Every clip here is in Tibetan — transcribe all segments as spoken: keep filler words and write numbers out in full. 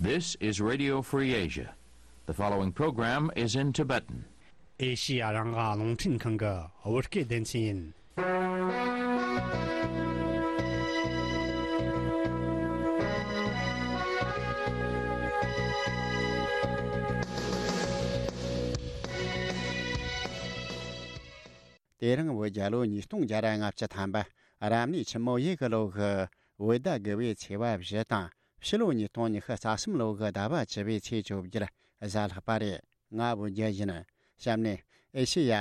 This is Radio Free Asia. The following program is in Tibetan. ཨེ་ཤི་ཡ་རང་དབང་རླུང་འཕྲིན་ཁང་གི་བོད་སྐད་སྡེ་ཚན་ཡིན། དེ་རིང་བོད་རྒྱལ་ལོ་ཉིས་སྟོང་བརྒྱ་ར་ལྔ་བཅུ་ཐམ་པ། རབ་གནས་ཆུ་མོ་ཡོས་གི་ལོ་གི་བོད་ཟླ་དགུ་བའི་ཚེས་པ་བཞི་དང་། ཕྱི་ལོ་ཉིས་སྟོང་ཉི་ཤུ་རྩ་གསུམ་ལོ་གི་ཟླ་བ་བཅུ་པའི་ཚེས་བཅོ་བརྒྱད་གཟའ་ལྷག་པ་རེད། ང་བོད་རྒྱལ་ཡིན། གཤམ་ནས་ཨེ་ཤེ་ཡ་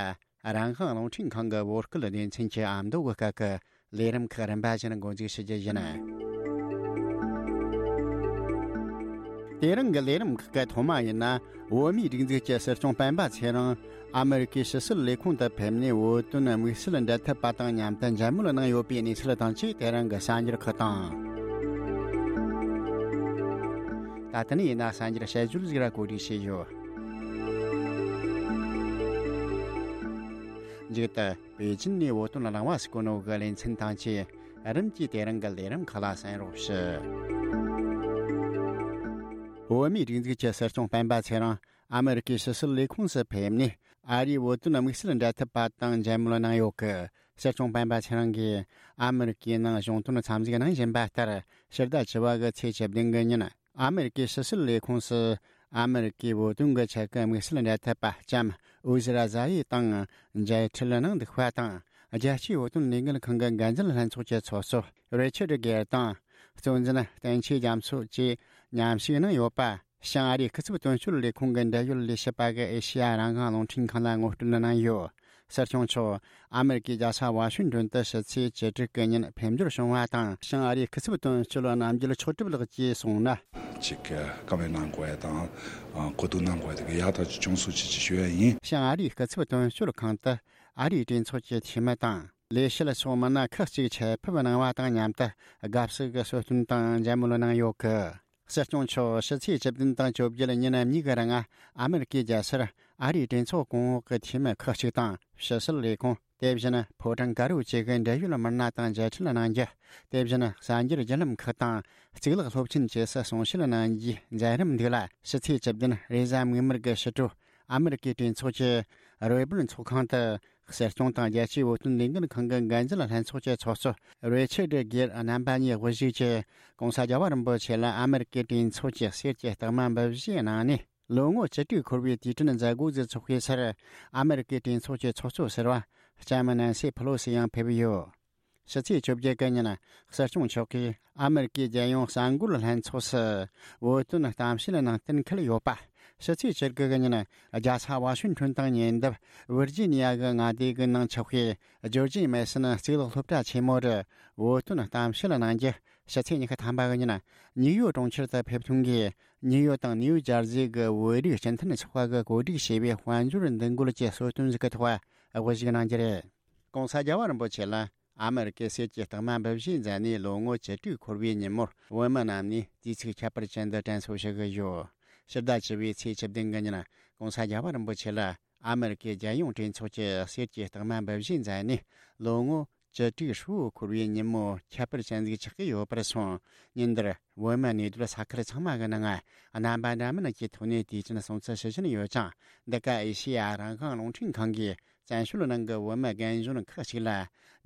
རང་དབང་རླུང་འཕྲིན་ཁང་གི་བོད་སྐད་སྡེ་ཚན་གྱི་ཨ་མདོ་གི་སྐད་ཀྱི་ལས་རིམ་ཁག་རིམ་པ་བཞིན་འགོ་འཛུགས་ཞུ་རྒྱུ་ཡིན། དེ་རིང་གི་ལས་རིམ་ཁག་གི་ཐོག་མ་ཡིན་ན། བོད་མིའི་སྒྲིག་འཛུགས་ཀྱི་སྲིད་སྐྱོང་སྤེན་པ་ཚེ་རིང་ཨ་མེ་རི་ཀའི་ཕྱི་སྲིད་ལས་ཁུངས་དུ་ཕེབས་ནས་བོད་དོན་དམིགས་བསལ་འབྲེལ་མཐུད་པ་དང་མཉམ་དུ་མཇལ་མོལ་གནང་ཡོད་པའི་གནས་ཚུལ་དང་བཅས། དེ་རིང་གི་གསར་འགྱུར་ཁག་དང་། ད་ལྟ་ནས་ཡིན་ན་གསར་འགྱུར་དཔྱད་བརྗོད་ཟིག་ར་གོ་སྒྲིག་བྱས་ཡོད། མཇུག་ཏུ། པེ་ཅིན་ནས་བོད་དོན་རླུང་བ་སུ་གོ་ནོ་གི་ལེ་ཚན་དང་བཅས་རིམ་གྱིས་དེ་རིང་གི་ལས་རིམ་ཁག་ལ་གསན་རོགས་ཞུ། བོད་མིའི་སྒྲིག་འཛུགས་ཀྱི་སྲིད་སྐྱོང་སྤེན་པ་ཚེ་རིང་ཨ་མེ་རི་ཀའི་ཕྱི་སྲིད་ལས་ཁུངས་སུ་ཕེབས་ནས། ཨ་རིའི་བོད་དོན་དམིགས་བསལ་འབྲེལ་མཐུད་པ་དང་མཇལ་མོལ་གནང་ཡོད་སྐད། སྲིད་སྐྱོང་སྤེན་པ་ཚེ་རིང་གིས་ཨ་མེ་རི་ཀའི་ནང་གཞུང་དོན་འཚམས་གཟིགས་གནང་བཞིན་པ་ལྟར། ཕྱི་ཟླ་བཅུ་པ་གི་ཚེས་བཅུ་བདུན་གི་ཉིན། ཨ་མེ་རི་ཀའི་ཕྱི་སྲིད་ལས་ཁུངས་སུ་ཨ་མེ་རི་ཀའི་བོད་དོན་གྱི་ཆེད་ཀྱི་དམིགས་བསལ་འབྲེལ་མཐུད་པ་ལྕམ་ཨུ་ཟི་ར་ཛ་ཡི་དང་མཇལ་འཕྲད་གནང་འདུག་པ་དང་། རྒྱལ་སྤྱིའི་བོད་དོན་ལས་འགུལ་ཁང་གི་འགན་འཛིན་ལྷན་ཚོགས་ཀྱི་ཚོགས་གཙོ་རི་ཆར་གེར་དང་། གཙོ་འཛིན་བསྟན་ཆོས་རྒྱ་མཚོ་བཅས་མཉམ་ཞུགས་གནང་ཡོད་པ། བྱང་ཨ་རིའི་སྐུ་ཚབ་དོན་གཅོད་ལས་ཁུངས་ཀྱི་འབྲེལ་ཡོད་ལས་བྱེད་པ་གིས་ཨེ་ཤེ་ཡ་རང་དབང་རླུང་འཕྲིན་ཁང་ལ་ངོ་སྤྲོད་གནང་ཡོད། སྲིད་སྐྱོང་མཆོག་ཨ་མེ་རི་ཀའི་རྒྱལ་ས་ཝ་ཤིང་ཏོན་དུ་ཕྱི་ཚེས་བཅུ་དྲུག་གི་ཉིན་ཕེབས་འབྱོར་བྱུང་བ་དང་། བྱང་ཨ་རིའི་སྐུ་ཚབ་དོན་གཅོད་རྣམ་རྒྱལ་མཆོག་གྲུབ་ལགས་ཀྱིས་གསུངས་ན། ཅིག་བཀའ་མོལ་གནང་དགོས་ཡ་དང་། གོ་བསྡུར་གནང་དགོས་ཡ་དེ་ག་ཡག་ཐག་ཆོད་བྱུང་སོང་ཅེས་ཞུ་ཡ་ཡིན། བྱང་ཨ་རིའི་སྐུ་ཚབ་དོན་གཅོད་ཁང་དུ་ཨ་རིའི་གྲོས་ཚོགས་ཀྱི་འཐུས་མི་དང་། ལས་བྱེད་ཕྱོགས་མི་སྣ་ཁག་ཅིག་ཆེད་ཕེབས་གནང་བ་དང་མཉམ་དུ། དགའ་བསུ་གི་གསོལ་སྟོན་དང་མཇལ་མོལ་གནང་ཡོད་སྐད། སྲིད་སྐྱོང་མཆོག་ཕྱི་ཚེས་བཅུ་བདུན་དང་བཅོ་བརྒྱད་ཉིན་གཉིས་ཀའི་རིང་ཨ་མེ་རི་ཀའི་རྒྱལ་སར་ཨ་རིའི་གྲོས་ཚོགས་གོང་འོག་གི་འཐུས་མི་ཁག་ཅིག་དང་། ཕྱི་སྲིད་ལས་ཁུངས། དེ་བཞིན་ཕོ་བྲང་དཀར་པོ་བཅས་ཀྱི་འབྲེལ་ཡོད་མི་སྣ་དང་མཇལ་འཕྲད་གནང་རྒྱུ། དེ་བཞིན་གསར་འགྱུར་བརྒྱུད་ལམ་ཁག་དང་གཙུག་ལག་སློབ་ཆེན་བཅས་སུ་གསུང་བཤད་གནང་རྒྱུའི་མཛད་རིམ་འདུག་ལ། ཕྱི་ཚེས་བཅུ་བདུན་རེས་གཟའ་མིག་དམར་གྱི་ཕྱི་དྲོ། ཨ་མེ་རི་ཀའི་གྲོས་ཚོགས་ཀྱི་རོལ་པར་ཚོགས་ཁང་དུ། སྲིད་སྐྱོང་དང་རྒྱལ་སྤྱིའི་བོད་དོན་ལས་འགུལ་ཁང་གི་འགན་འཛིན་ལྷན་ཚོགས་ཀྱི་ཚོགས་གཙོ་རི་ཆར་གེར་རྣམ་པ་གཉིས་དབུ་བཞུགས་ཀྱིས་༸གོང་ས་རྒྱལ་བ་རིན་པོ་ཆེ་ལ་ཨ་མེ་རི་ཀའི་གྲོས་ཚོགས་ཀྱི་གསེར་གྱི་རྟགས་མ་འབུལ་བཞེས་གནང་ནས། ལོ་ངོ་བཅུ་དྲུག་འཁོར་བའི་དུས་དྲན་མཛད་སྒོ་ཟིག་འཚོགས་པའི་སར། ཨ་མེ་རི་ཀའི་གྲོས་ཚོགས་ཀྱི་ཚོགས་གཙོ་ཟུར་པ་ལྕམ་ནན་སི་ཕེ་ལོ་སི་ཡང་ཕེབས་ཡོད། ཕྱི་ཚེས་བཅོ་བརྒྱད་གི་ཉིན། སྲིད་སྐྱོང་མཆོག་གིས་ཨ་མེ་རི་ཀའི་རྒྱལ་ཡོངས་གསར་འགོད་ལྷན་ཚོགས་སུ་བོད་དོན་གཏམ་བཤད་ནང་གཏན་འཁེལ་ཡོད་པ། ཕྱི་ཚེས་བཅུ་དགུ་གི་ཉིན། རྒྱལ་ས་ཝ་ཤིང་ཊོན་དང་ཉེ་འདབས་ཝིར་ཇི་ནི་ཡ་གི་མངའ་སྡེ་གི་ནང་ཆགས་པའི་ཇོར་ཇི་མེ་སོན་གཙུག་ལག་སློབ་གྲྭ་ཆེན་མོ་རུ་བོད་དོན་གཏམ་བཤད་གནང་རྒྱུ། ཕྱི་ཚེས་ཉི་ཤུ་ཐམ་པ་གི་ཉིན། ནིའུ་ཡོག་གྲོང་ཁྱེར་དུ་ཕེབས་ཐོན་གྱིས། ནིའུ་ཡོག་དང་ནིའུ་ཇར་ཟི་གི་བོད་རིགས་སྤྱི་མཐུན་ཚོགས་པ་གིས་གོ་སྒྲིག་བྱས་པའི་དཔལ་འབྱོར་འདུ་འགོད་ཀྱི་གསོལ་སྟོན་ཞིག་གི་ཐོག་དབུ་བཞུགས་གནང་རྒྱུ་རེད། ༸གོང་ས་རྒྱལ་བ་རིན་པོ་ཆེ་ལ་ཨ་མེ་རི་ཀའི་གསེར་གྱི་རྟགས་མ་འབུལ་བཞེས་མཛད་ནས་ལོ་ངོ་བཅུ་དྲུག་འཁོར་བའི་ཉིན་མོར། བོད་མི་རྣམས་ནས་དུས་ཚིགས་ཁྱད་པར་ཅན་དུ་དྲན་གསོ་ཞུ་གི་ཡོད། ཕྱི་ཟླ་བཅུ་པའི་ཚེས་བཅུ་བདུན་གི་ཉིན། ༸གོང་ས་རྒྱལ་བ་རིན་པོ་ཆེ་ལ་ཨ་མེ་རི་ཀའི་རྒྱལ་ཡོངས་གྲོས་ཚོགས་ཀྱི་གསེར་གྱི་རྟགས་མ་འབུལ་བཞེས་མཛད་ནས། ལོ་ངོ་བཅུ་དྲུག་ཧྲིལ་པོ་འཁོར་བའི་ཉིན་མོ་ཁྱད་པར་ཅན་ཟིག་ཆགས་ཀྱི་ཡོད་པར་སོང་། ཉིན་འདིར་བོད་མི་གནས་སྡོད་ས་ཁུལ་ཚང་མ་གི་ནང་རྣམ་པ་འདྲ་མིན་གྱི་ཐོག་ནས་དུས་ཆེན་སྲུང་བརྩི་ཞུ་བཞིན་ཡོད་ཅིང་། འདི་ག་ཨེ་ཤེ་ཡ་རང་དབང་རླུང་འཕྲིན་ཁང་གིས་བཙན་བྱོལ་ནང་གི་བོད་མི་རྒན་གཞོན་ཁག་ཅིག་ལ་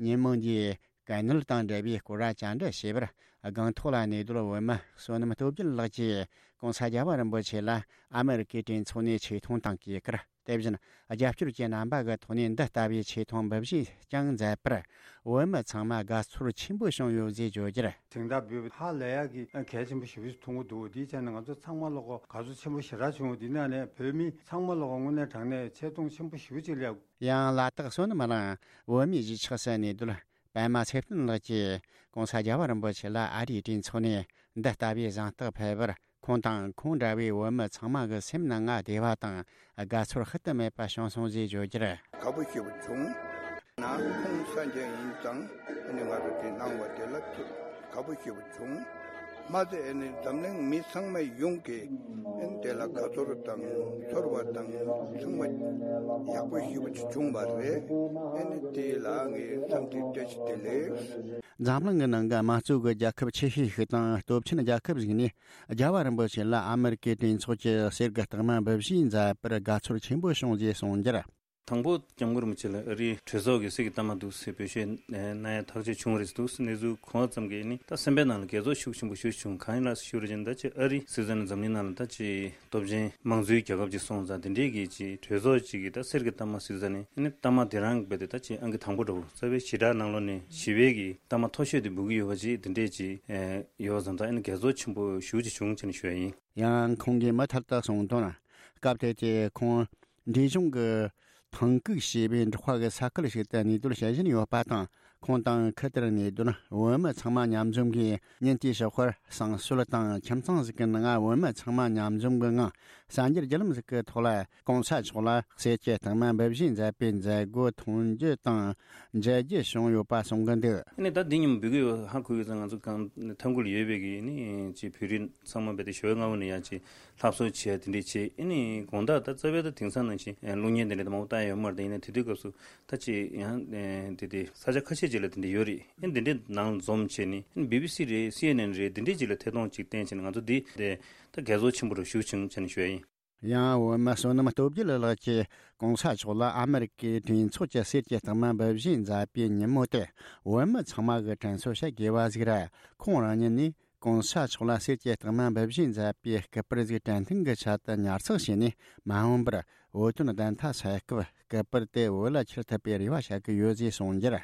ཉིན་མོ་འདིའི་གན་ནུས་དང་འབྲེལ་བའི་སྐོར་བཅར་འདྲི་བྱས་པར། སྒང་ཐོག་ལ་གནས་སྡོད་བོད་མི་བསོད་ནམས་སྟོབས་རྒྱལ་ལགས་ཀྱིས་༸གོང་ས་རྒྱལ་བ་རིན་པོ་ཆེ་ལ་ཨ་མེ་རི་ཀའི་གྲོས་ཚོགས་ནས་ཆེ་མཐོང་དང་གུས་བཀུར། དེ་བཞིན་རྒྱབ་སྐྱོར་གྱི་རྣམ་པ་གི་ཐོག་ནས་འདི་ལྟ་བུའི་ཆེ་མཐོང་འབུལ་བཞེས་ཀྱང་མཛད་པར། བོད་མི་ཚང་མ་དགའ་ཚོར་ཆེན་པོ་བྱུང་ཡོད་ཅེས་བརྗོད་རྒྱུར། དེང་ལྟར་འབུལ་བ་ཧ་ལས་ཡག་གི་གལ་ཆེན་པོ་ཞེ་པོ་ཞིག་མཐོང་གི་འདུག་དེའི་ཆ་ནས་ང་ཚོ་ཚང་མ་ལོག་གོ་དགའ་ཚོར་ཆེན་པོ་ཞེ་དྲག་བྱུང་། དེ་ནང་ནས་བོད་མི་ཚང་མ་ལོག་གོ་དངོས་གནས་དྲང་གནས་ཆེ་མཐོང་ཆེན་པོ་ཞེ་པོ་ཅིག་སླེབས། ཡང་ལ་དྭགས་བསོད་ནམས་གླིང་བོད་མིའི་གཞིས་ཆགས་སུ་གནས་སྡོད་པད་མ་ཚེ་བརྟན་ལགས་ཀྱིས་༸གོང་ས་རྒྱལ་བ་རིན་པོ་ཆེ་ལ་ཨ་རིའི་གྲོས་ཚོགས་ནས་འདི་ལྟ་བུའི་གཟེངས་རྟགས་ཕུལ་བར། ཁོང་དང་ཁོང་འདྲ་བའི་བོད་མི་ཚང་མ་གི་སེམས་ནང་ང་བདེ་བ་དང་དགའ་ཚོར་ཤུལ་དུ་མེད་པ་བྱུང་སོང་ཞེས་བརྗོད་རྒྱུར། དགའ་པོ་ཞེ་པོ་བྱུང་། ན་ཁོང་གསར་འགྱུར་ཡིན་ཙང་ཨ་ནི་ང་རང་དེ་གནང་བ་དེ་ལ་ཐུགས་དགའ་པོ་ཞེ་པོ་བྱུང་། མ་ཚད་ཨེ་ནི་འཛམ་གླིང་མི་ཚང་མ་ཡོངས་ཀྱིས་ཨེ་ནི་དེ་ལ་དགའ་ཚོར་དང་ཚོར་བ་དང་ཚང་མ་ཡག་པོ་ཞེ་པོ་ཅིག་བྱུང་བ་རེད། ཨེ་ནི་དེ་ལ་ངས་འཚམས་འདྲི་བཀྲ་ཤིས་བདེ་ལེགས། འཛམ་གླིང་གི་ནང་གི་དམངས་གཙོ་གི་རྒྱལ་ཁབ་ཆེ་ཤོས་ཤིག་དང་སྟོབས་ཆེན་རྒྱལ་ཁབ་ཞིག་ནས། རྒྱལ་བ་རིན་པོ་ཆེ་ལ་ཨ་མེ་རི་ཀའི་གྲོས་ཚོགས་ཀྱི་གསེར་གྱི་རྟགས་མ་འབུལ་བཞེས་མཛད་པར་དགའ་ཚོར་ཆེན་པོ་བྱུང་ཞེས་གསུངས་རྒྱུར། དང་པོ་སྐྱབས་མགོན་རིན་པོ་ཆེ་ལ་ཨ་རིའི་གྲོས་ཚོགས་ཀྱི་གསེར་གྱི་རྟགས་མ་འདུག་ཟེར་འབུལ་བཞེས་གནང་ཡ་ཐག་གཅོད་བྱུང་བ་རེད་འདུག་ཟེར། གནས་ཚུལ་གོ་བ་ཙམ་གྱིས་ནི་ད་སེམས་པའི་ནང་ལ་དགྱེས་ཚོར་ཤུགས་ཆེན་པོ་ཞེ་པོ་བྱུང་། གང་ཡིན་ལ་ཞུ་རེ་བྱས་ན་ད་ཅིག་ཨ་རི་ཟེར་ཙ་ན་འཛམ་གླིང་ནང་ལ་ད་ཅིག་སྟོབས་ཆེན་དམངས་གཙོའི་རྒྱལ་ཁབ་ཅིག་སོང་ཙང་དེ་འདྲའི་གི་ཅིག་གྲོས་ཚོགས་ཅིག་གི་ད་གསེར་གྱི་རྟགས་མ་ཟེར་ཙ་ནི་ཨ་ནི་རྟགས་མ་དེ་རང་རྦད་དེ་ད་ཅིག་ཨང་ཀི་དང་པོ་འདྲ་བོ་རྩ་བའི་ཞེ་དྲག་ནང་ལོགས་ནས་ཞི་བའི་གི་རྟགས་མ་མཐོ་ཤོས་དེ་འབུལ་གྱི་ཡོད་པ་ཅིག་དེ་འདྲས་ཅིག་ཡོད་ཙང་ད་ཨ་ནི་དགྱེས་ཚོར་ཆེན་པོ་ཞེ་པོ་ཅིག་བྱུང་ཟེར་ནས་ཞུ་ཡ་ཡིན། ཡང་ཁོང་གིས་མུ་མཐུད་དུ་གསུངས་དོན། སྐབས་དེ་དུས་ཁོང་འབྲས་ལྗོངས་ཀྱི་ཐང་ཀུག་ཞེས་པའི་འབྲོག་པ་གི་ས་ཁུལ་ཞིག་ཏུ་གནས་སྡོད་བྱེད་བཞིན་ཡོད་པ་དང་། ཁོང་དང་ཁུལ་དེར་གནས་སྡོད་བོད་མི་ཚང་མ་མཉམ་འཛོམས་ཀྱིས་ཉིན་དེའི་ཞོགས་པར་བསང་གསོལ་དང་ཁྱིམ་ཚང་ཞིག་གི་ནང་བོད་མི་ཚང་མ་མཉམ་འཛོམས་ཀྱི་ངང་གསར་འགྱུར་བརྒྱུད་ལམ་ཞིག་གི་ཐོག་ལ་༸གོང་ས་མཆོག་ལ་གསེར་གྱི་རྟགས་མ་འབུལ་བཞེས་མཛད་པའི་མཛད་སྒོ་མཐོང་རྒྱུ་དང་མཇལ་རྒྱུ་བྱུང་ཡོད་པ་གསུང་གི་འདུག་ཨ་ནི་ད་འདི་ཉིན་འབུལ་གྱི་ཡོད། ཧ་གོ་ཡོད་ཙང་ང་ཚོ་གང་ཐང་ཀུག་ལ་ཡོད་པའི་གི་ནི་ཅིག་བོད་རིགས་ཚང་མ་རྦད་དེ་ཞོགས་སྔ་པོ་ནས་ཡང་ཅིག་ལྷ་གསོལ་བྱས་དེ་འདྲས་བྱས། ཨ་ནི་དགོང་དག་ད་རྩ་བའི་ད་དེང་སང་ནང་བཞིན་གློག་བརྙན་དེ་འདྲས་ད་མང་པོ་བལྟ་ཡ་ཡོད་མ་རེད། ད་ཡིན་ན་དེ་དུས་སྐབས་སུ་ད་ཅིག་ཡང་དེ་དེ་ས་ཆ་ཁ་ཤས་ཅིག་ལ་དེ་འདྲས་ཡོད་རེད། ཨ་ནི་དེ་འདྲས་ནང་ལ་འཛོམས་བྱས་ནས་ཨ་ནི་བི་བི་སི་རེད། སི་ཨེན་ཨེན་རེད། དེ་འདྲས་ཅིག་ལ་ཐད་གཏོང་ཅིག་བསྟན་བྱས་ནས་ང་ཚོ་འདི་དེ་ད་དགྱེས་ཚོར་ཆེན་པོ་རུ་ཞུགས་བྱུང་བྱས་ནས་ཞུ་ཡ་ཡིན། ཡང་བོད་མི་བསོད་ནམས་སྟོབས་རྒྱལ་ལགས་ཀྱིས་༸གོང་ས་མཆོག་ལ་ཨ་མེ་རི་ཀའི་གྲོས་ཚོགས་ཀྱི་གསེར་གྱི་རྟགས་མ་འབུལ་བཞེས་མཛད་པའི་ཉིན་མོ་དེ་བོད་མི་ཚང་མ་གི་དྲན་གསོ་བྱེད་དགོས་པ་ཟིག་རེད། ཁོང་རང་ཉིད་ནས་༸གོང་ས་མཆོག་ལ་གསེར་གྱི་རྟགས་མ་འབུལ་བཞེས་མཛད་པའི་སྐུ་པར་ཟིག་དྲན་རྟེན་གྱི་ཆེད་དུ་ཉར་ཚགས་བྱས་ནས་མ་འོངས་པར་བོད་དོན་བདེན་མཐའ་གསལ་སྐབས་སྐུ་པར་དེ་བོད་ལ་ཁྱེར་ཐུབ་པའི་རེ་བ་བྱེད་ཀྱི་ཡོད་ཅེས་གསུངས་རྒྱུར།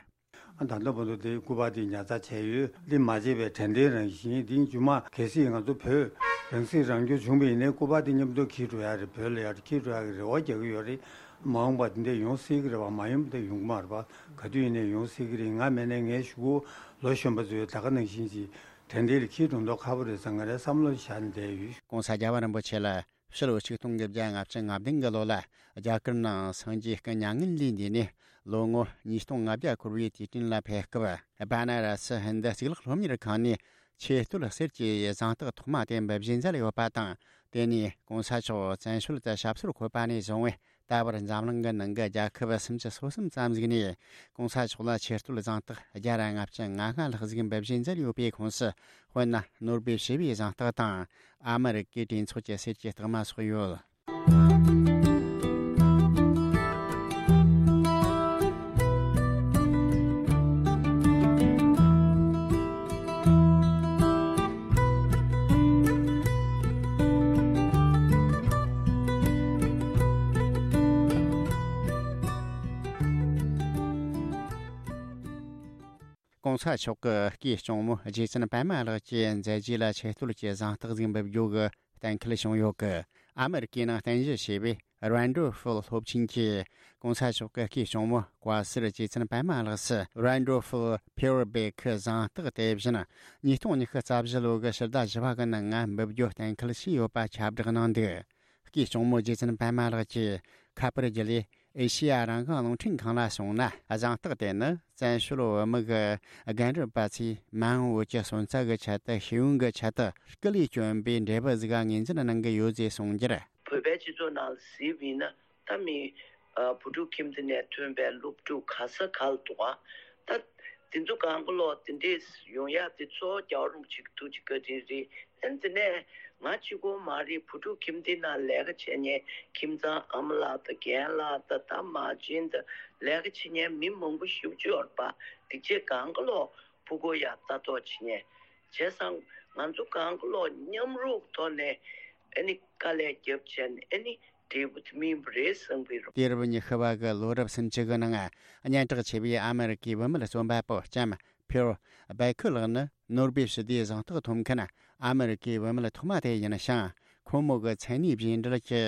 ད་ལྟ་བར་དུ་དེའི་སྐུ་པར་དེ་ཉར་ཚགས་བྱས་ཡོད། འདི་མ་བརྗེད་པའི་དྲན་རྟེན་རང་བཞིན། འདི་མཇུག་མ་གལ་སྲིད་ང་ཚོ་བོད་རང་སྲིད་རང་སྐྱོང་བྱུང་བ་ཡིན་ནའི་སྐུ་པར་དེ་མཉམ་དུ་འཁྱེར་འགྲོ་ཡ་རེད། བོད་ལ་ཡར་འཁྱེར་འགྲོ་ཡ་གི་རེ་བ་རྒྱག་གི་ཡོད་རེད། མ་འོངས་པ་དེ་འདྲ་ཡོང་སྲིད་ཀྱི་རེད་པ། མ་ཡོང་པ་དེ་ཡོང་གི་མ་རེད་པ། ག་དུས་ཡིན་ནའི་ཡོང་སྲིད་ཀྱི་རེད། ང་མེད་ནའི་ངའི་གཞུག་གུ་ལོ་གཞོན་པ་ཚོས་ད་ག་ནང་བཞིན་གྱི་དྲན་རྟེན་ལ་འཁྱེར་འགྲོ་མདོག་ཁ་པོ་རེད་བསམ། ང་རའི་བསམ་བློ་བཞག་ནས་བསྡད་ཡོད། ༸གོང་ས་རྒྱལ་བ་རིན་པོ་ཆེ་ལ་ཕྱི་ལོ་ཆིག་སྟོང་དགུ་བརྒྱ་ལྔ་བཅུ་ང་བདུན་གྱི་ལོ་ལ་རྒྱ་གར་ནང་སངས་རྒྱས་སྐུ་མྱ་ངན་ལས་འདས་ནས་ལོ་ངོ་ཉིས་སྟོང་ལྔ་བརྒྱ་འཁོར་བའི་དུས་དྲན་ལ་ཕེབས་སྐབས། བཱ་ན་ར་སི་ཧིན་རྡུ་གཙུག་ལག་སློབ་གཉེར་ཁང་ནས་ཆོས་རྟོལ་གསེར་གྱི་གཟེངས་རྟགས་ཐོག་མ་དེ་འབུལ་བཞེས་མཛད་ཡོད་པ་དང་། དེ་ནས་༸གོང་ས་མཆོག་བཙན་བྱོལ་དུ་ཞབས་སོར་འཁོད་པ་ནས་བཟུང་བའི་ད་བར་འཛམ་གླིང་གི་ནང་གི་རྒྱལ་ཁབ་སུམ་ཅུ་སོ་གསུམ་ཙམ་ཞིག་ནས་༸གོང་ས་མཆོག་ལ་ཆོས་རྟོལ་གཟེངས་རྟགས་བརྒྱ་དང་ལྔ་བཅུ་ང་ལྔ་ལྷག་ཞིག་འབུལ་བཞེས་མཛད་ཡོད་པའི་ཁོངས་སུ། དཔེར་ན། ནོ་སྦེལ་ཞི་བའི་གཟེངས་རྟགས་དང་། ཨ་མེ་རི་ཀའི་གྲོས་ཚོགས་ཀྱི་གསེར་གྱི་རྟགས་མ་སོགས་ཡོད། ༸གོང་ས་མཆོག་གི་སྐུའི་གཅུང་མོ་རྗེ་བཙུན་པད་མ་ལགས་ཀྱི་མཛད་རྗེས་ལ་ཆེ་བསྟོད་ཀྱི་གཟེངས་རྟགས་ཤིག་འབུལ་རྒྱུ་གི་གཏན་འཁེལ་བྱུང་ཡོད་ཀི། ཨ་མེ་རི་ཀའི་ནང་རྟེན་གཞི་བྱས་པའི་རན་ཌོལ་ཧྥུལ་སློབ་ཆེན་གྱིས་༸གོང་ས་མཆོག་གི་སྐུའི་གཅུང་མོ་བཀའ་ཟུར་རྗེ་བཙུན་པད་མ་ལགས་སུ་རན་ཌོལ་ཧྥུལ་ཕིའུར་བེ་ཁི་གཟེངས་རྟགས་དེ་བཞིན་ཉིས་སྟོང་ཉི་ཤུ་རྩ་བཞི་ལོ་གི་ཕྱི་ཟླ་བཞི་པ་གི་ནང་ང་འབུལ་རྒྱུ་གཏན་འཁེལ་བྱས་ཡོད་པ་ཁྱབ་བསྒྲགས་གནང་འདུག། སྐུའི་གཅུང་མོ་རྗེ་བཙུན་པད་མ་ལགས་ཀྱིས་ཁ་པར་བརྒྱུད་ལས་ཨེ་ཤེ་ཡ་རང་དབང་རླུང་འཕྲིན་ཁང་ལ་གསུངས་ན། གཟེངས་རྟགས་དེ་ནི་བཙན་བྱོལ་བོད་མི་གི་རྒན་རབས་པ་ཚོས་མ་འོངས་བོད་ཀྱི་སོན་རྩ་གི་ཆེད་དུ་ཤེས་ཡོན་གྱི་ཆེད་དུ་སྐུ་ལས་བསྐྱོན་པའི་འབྲས་བུ་ཟིག་ངོས་འཛིན་གནང་གི་ཡོད་ཅེས་གསུངས་རྒྱུར། བོད་པའི་སྤྱི་ཚོགས་ནང་ལ་གཟིགས་པ་ཡིན་ན། ད་མི་ཨ་བུ་ཕྲུག་ཁྱིམ་སྡེ་ནས་ཐོན་པའི་སློབ་ཕྲུག་ག་ས་ག་ལ་འདུག་ག་ད་དེ་ཚོ་གང་ག་ལོག་དེ་འདྲས་ཡོང་ཡག་དེ་གཙོ་བོ་རྒྱལ་བ་རིན་པོ་ཆེ་གི་ཐུགས་རྗེ་བཀའ་དྲིན་རེད། ཨ་ནི་དེ་ནས་ང་གཅིག་པོ་མ་རེད། བུ་ཕྲུག་ཁྱིམ་སྡེ་ནང་ལས་ཀ་བྱེད་མཁན་ཁྱིམ་ཚང་ཨ་མ་ལགས་དང་རྒན་ལགས་དང་ད་མ་བྱན་དང་ལས་ཀ་བྱེད་མཁན་མི་མང་པོ་ཞེ་པོ་ཅིག་ཡོད་རེད་པ། དེ་ཚོ་གང་ག་ལོག་ཕྲུ་གུ་ཡ་ལྟ་རྟོག་བྱེད་མཁན། བྱས་ཙང་ང་ཚོ་གང་ག་ལོག་མཉམ་རུབ་ཐོག་ནས་ཨ་ནི་དཀའ་ལས་རྒྱབ་བྱས་ནས་ཨ་ནི་འབྲས་བུ་དེ་སྨིན་པ་རེད་བསམ་གྱི་ཡོད། དུས་རབས་ཉི་ཤུ་བ་གི་ལོ་རབས་སུམ་ཅུ་གི་ནང་སྙན་གྲགས་ཆེ་བའི་ཨ་མེ་རི་ཀའི་བུད་མེད་རྩོམ་པ་པོ་ལྕམ་ཕིའུ་བེ་ཁི་ལགས་ནི་ནོ་སྦེལ་ཞི་བདེའི་གཟེངས་རྟགས་ཐོབ་མཁན་ཨ་མེ་རི་ཀའི་བུད་མེད་ཐོག་མ་དེ་ཡིན་ཞིང་། ཁོ་མོ་གི་མཚན་གནས་རྗེས་འབྲེལ་གྱི་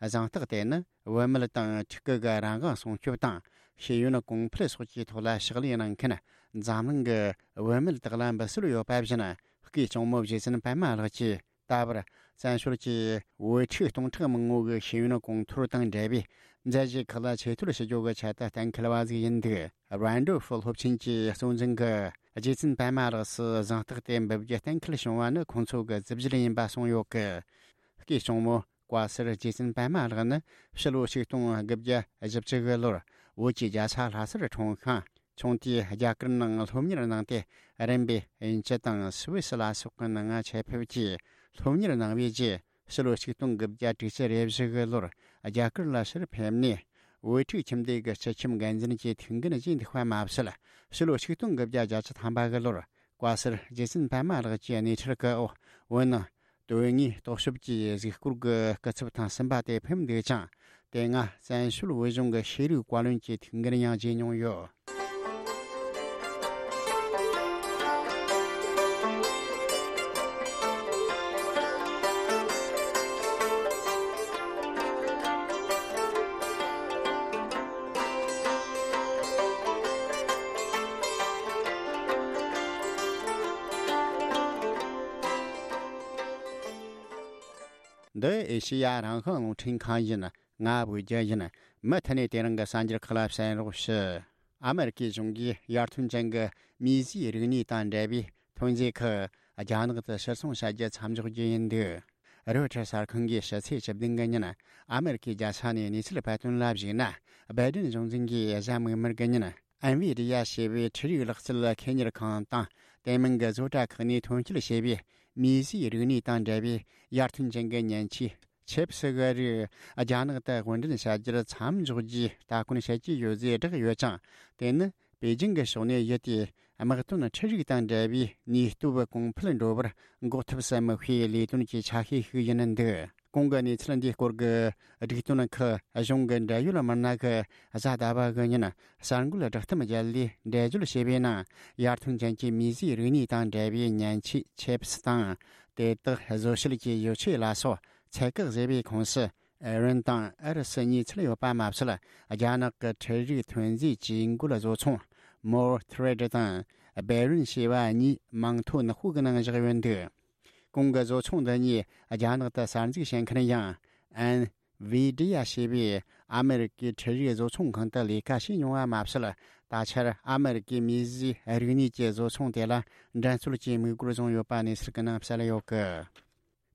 གཟེངས་རྟགས་དེ་ནི་བུད་མེད་དང་ཕྲུ་གུ་གི་རང་དབང་སྲུང་སྐྱོབ་དང་ཤེས་ཡོན་གོང་འཕེལ་སོགས་ཀྱི་ཐོག་ལ་ཕྱག་ལས་གནང་མཁན་འཛམ་གླིང་གི་བུད་མེད་དག་ལ་འབུལ་སྲོལ་ཡོད་པ་བཞིན། སྐུའི་གཅུང་མོ་རྗེ་བཙུན་པད་མ་ལགས་ཀྱིས་ད་བར་བཙན་བྱོལ་གྱི་བུ་ཕྲུག་སྟོང་ཕྲག་མང་པོ་གི་ཤེས་ཡོན་གོང་མཐོར་དང་འབྲེལ་བའི་ མཛད་གཞི་ཁག་ལ་ཆེ་བསྟོད་ཞུ་རྒྱུ་གི་ཆེད་དུ་གཏན་འཁེལ་བ་ཟིག་ཡིན་འདུག Randolph སློབ་ཆེན་གྱི་གཙོ་འཛིན་གྱིས་རྗེ་བཙུན་པད་མ་ལགས་སུ་གཟེངས་རྟགས་དེ་འབུལ་རྒྱུ་གཏན་འཁེལ་བྱུང་བ་ནི་ཁོང་ཚོ་གི་རྩིས་གཞི་ཡིན་པ་གསུངས་ཡོད་ཀི། སྐུའི་གཅུང་མོ་བཀའ་ཟུར་རྗེ་བཙུན་པད་མ་ལགས་ནི་ཕྱི་ལོ་ཆིག་སྟོང་དགུ་བརྒྱ་བཞི་བཅུ་གི་ལོར་བོད་ཀྱི་རྒྱལ་ས་ལྷ་སར་འཁྲུངས་ཤིང་། ཆུང་དུས་རྒྱ་གར་ནང་སློབ་གཉེར་གནང་སྟེ། རིམ་པས་དབྱིན་ཇི་དང་སུད་སི་ལ་སོགས་ཀྱི་ནང་ཆེད་ཕེབས་ཀྱིས་སློབ་གཉེར་གནང་བའི་རྗེས། ཕྱི་ལོ་ཆིག་སྟོང་དགུ་བརྒྱ་དྲུག་ཅུ་རེ་བཞི་གི་ལོར་རྒྱ་གར་ལ་ཕྱིར་ཕེབས་ནས། བོད་ཕྲུག་ཁྱིམ་སྡེ་གི་སྤྱི་ཁྱིམ་འགན་འཛིན་གྱི་ཐུགས་འགན་བཞེས་འདུག་པ་མ་ཟད། ཕྱི་ལོ་ཆིག་སྟོང་དགུ་བརྒྱ་བརྒྱད་ཅུ་ཐམ་པ་གི་ལོར་བཀའ་ཟུར་རྗེ་བཙུན་པད་མ་ལགས་ཀྱི་སྣེ་ཁྲིད་ཀྱི་འོག་བོད་ནང་དོན་དངོས་རྟོག་ཞིབ་ཀྱི་གཟིགས་སྐོར་གྱི་སྐུ་ཚབ་ཐེངས་གསུམ་པ་དེ་ཕེབས་འདུག་ཅིང་། དེ་སྔ་བཙན་བྱོལ་བོད་གཞུང་གི་ཤེས་རིག་བཀའ་བློན་གྱི་ཐུགས་འགན་ཡང་བཞེས་མྱོང་ཡོད། འདི་ཨེ་ཤེ་ཡ་རང་དབང་རླུང་འཕྲིན་ཁང་ཡིན། ང་བོད་རྒྱལ་ཡིན། མུ་མཐུད་ནས་དེ་རིང་གི་གསར་འགྱུར་ཁག་ལ་གསན་རོགས་ཞུ། ཨ་མེ་རི་ཁའི་གཞུང་གིས་ཡར་ཐོན་ཅན་གྱི་མིས་བཟོས་རིག་གནས་དང་འབྲེལ་བའི་ཐོན་རྫས་ཁག་རྒྱ་ནག་ཏུ་ཕྱིར་ཚོང་བྱ་རྒྱུ་མཚམས་འཇོག་རྒྱུ་ཡིན་འདུག་རོའི་ཊར་གསར་ཁང་གིས་ཕྱི་ཚེས་བཅུ་བདུན་གི་ཉིན་ཨ་མེ་རི་ཁའི་རྒྱལ་ས་ནས་གནས་ཚུལ་སྤེལ་དོན་ལ་གཞིགས་ན། སྦའི་ཏིན་གཞུང་འཛིན་གྱིས་གཟའ་མིག་དམར་གི་ཉིན་ཨེན་ཝི་ཌི་ཡ་ཞེས་པའི་འཕྲུལ་རིག་ལག་རྩལ་ཁེ་གཉེར་ཁང་དང་དེ་མིན་གྱི་བཟོ་གྲྭ་ཁག་ནས་ཐོན་སྐྱེད་བྱས་པའི་མིས་བཟོས་རིག་གནས་དང་འབྲེལ་བའི་ཡར་ཐོན་ཅན་གྱི་མཉེན་ཆས་ཆིབས་སི་གི་རིགས་རྒྱ་ནག་ཏུ་དབོར་འདྲེན་བྱ་རྒྱུར་མཚམས་འཇོག་རྒྱུའི་ལྟ་སྐོར་བྱེད་ཀྱི་ཡོད་ཅེས་བསྒྲགས་ཡོད་ཅིང་། དེ་ནི་པེ་ཅིང་གི་ཕྱོགས་ནས་ཡུལ་དེའི་དམག་དོན་འཕྲུལ་རིག་དང་འབྲེལ་བའི་ནུས་སྟོབས་གོང་འཕེལ་འགྲོ་བར་འགོག་ཐབས་སུ་དམིགས་པའི་ལས་དོན་གྱི་ཆ་ཤས་ཤིག་ཡིན་འདུག་གོང་གི་གནས་ཚུལ་འདིའི་སྐོར་གྱི་སྒྲིག་དོན་ཁག་གཞུང་གི་འབྲེལ་ཡོད་མི་སྣ་གིས་གཟའ་ཟླ་བ་གི་ཉིན་གསར་འགོད་བསྒྲགས་གཏམ་བརྒྱུད་ལས་འགྲེལ་བརྗོད་བྱས་པའི་ནང་། ཡར་ཐོན་ཅན་གྱི་མིས་བཟོས་རིག་གནས་དང་འབྲེལ་བའི་མཉེན་ཆས་ཆིབས་སི་དང་། དེ་དག་བཟོ་བྱེད་ཀྱི་ཡོ་ཆས་ལ་སོགས་ཚད་བཀག་བཟོས་པའི་ཁོངས་སུ། ཨེ་རན་དང་ཨུ་རུ་སུ་གཉིས་ཚུད་ཡོད་པ་མ་ཟད། རྒྱ་ནག་གི་འཕྲུལ་རིག་ཐོན་རྫས་ཇུས་འགོད་བཟོ་ཚོང་མོར་ཐི་རེད་དང་སྦེ་རུན་ཞེས་པ་གཉིས་མིང་ཐོ་ནག་པོ་གི་ནང་བཞག་ཡོད་འདུག་གོང་གི་བཟོ་ཚོང་འདི་གཉིས་རྒྱ་ནག་ཏུ་གསར་འཛུགས་བྱེད་མཁན་ཡང་ཨེན་ཝི་ཌི་ཡ་ཞེས་པའི་ཨ་མེ་རི་ཀའི་འཕྲུལ་རིག་བཟོ་ཚོང་ཁང་དུ་ལས་ཀ་བྱས་མྱོང་བ་མ་ཟད། ད་ཆར་ཨ་མེ་རི་ཀའི་མིས་བཟོས་རིག་གནས་ཀྱི་བཟོ་ཚོང་དེ་ལ་འགྲན་རྩོད་ཀྱི་དམིགས་ཡུལ་བཟུང་ཡོད་པ་གནས་ཚུལ་གྱི་ནང་གསལ་ཡོད་ཀི།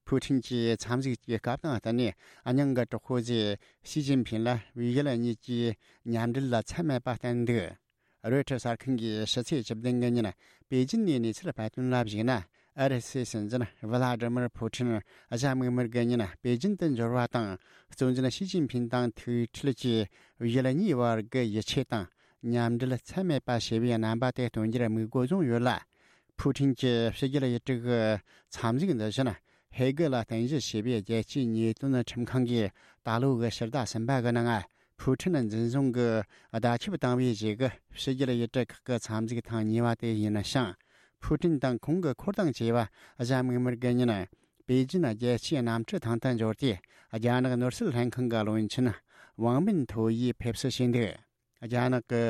ཕུའུ་ཁྲིན་གྱིས་འཚམས་གཟིགས་ཀྱི་སྐབས་དང་བསྟུན་ནས་སྙིང་གི་གྲོགས་པོ་ཟེར་ཞི་ཅིན་ཕིན་ལ་བོད་ཡུལ་གཉིས་ཀྱི་མཉམ་འབྲེལ་ལ་ཚད་མེད་པ་བསྟན་འདུག་རོའི་ཊར་གསར་ཁང་གིས་ཕྱི་ཚེས་བཅུ་བདུན་གི་ཉིན་པེ་ཅིན་ནས་གནས་ཚུལ་སྤེལ་དོན་ལ་གཞིགས་ན། ཨུ་རུ་སུའི་སྲིད་འཛིན་ཝི་ལ་ཏི་མིར་ཕུའུ་ཁྲིན་གཟའ་མིག་དམར་གི་ཉིན་པེ་ཅིན་དུ་འབྱོར་བ་དང་། གཙོ་འཛིན་ཞི་ཅིན་ཕིན་དང་ཐུག་འཕྲད་ཀྱིས་བོད་ཡུལ་གཉིས་བར་གྱི་ཡིད་ཆེས་དང་མཉམ་འབྲེལ་ཚད་མེད་པ་ཞེས་པའི་རྣམ་པ་དེ་སྟོན་རྒྱུར་དམིགས་ཡུལ་བཟུང་ཡོད་ལ། ཕུའུ་ཁྲིན་གྱི་ཕྱི་རྒྱལ་ཡུལ་གྲུ་གི་འཚམས་གཟིགས་འདི་བཞིན། ཧེ་གི་ལ་རྟེན་གཞི་བྱས་པའི་རྒྱལ་སྤྱིའི་ཉེས་དོན་ཁྲིམས་ཁང་གིས་ད་ལོ་གི་ཕྱི་ཟླ་གསུམ་པ་གི་ནང་། ཕུའུ་ཁྲིན་འཛིན་བཟུང་གི་བརྡ་ཁྱབ་བཏང་བའི་རྗེས་ཀྱི་ཕྱི་རྒྱལ་ཡུལ་གྲུ་ཁག་གི་འཚམས་གཟིགས་ཐེངས་གཉིས་པ་དེ་ཡིན་ཞིང་། ཕུའུ་ཁྲིན་དང་ཁོང་གི་འཁོར་དང་བཅས་པ་གཟའ་མིག་དམར་གྱི་ཉིན་པེ་ཅིན་རྒྱལ་སྤྱིའི་གནམ་གྲུ་ཐང་དུ་འབྱོར་ཏེ། རྒྱ་ནག་ནོར་སྲིད་ལྷན་ཁང་གི་བློན་ཆེན་ཝང་མིན་ཐོ་ཡིས་ཕེབས་བསུ་བྱས་འདུག་རྒྱ་ནག་གི་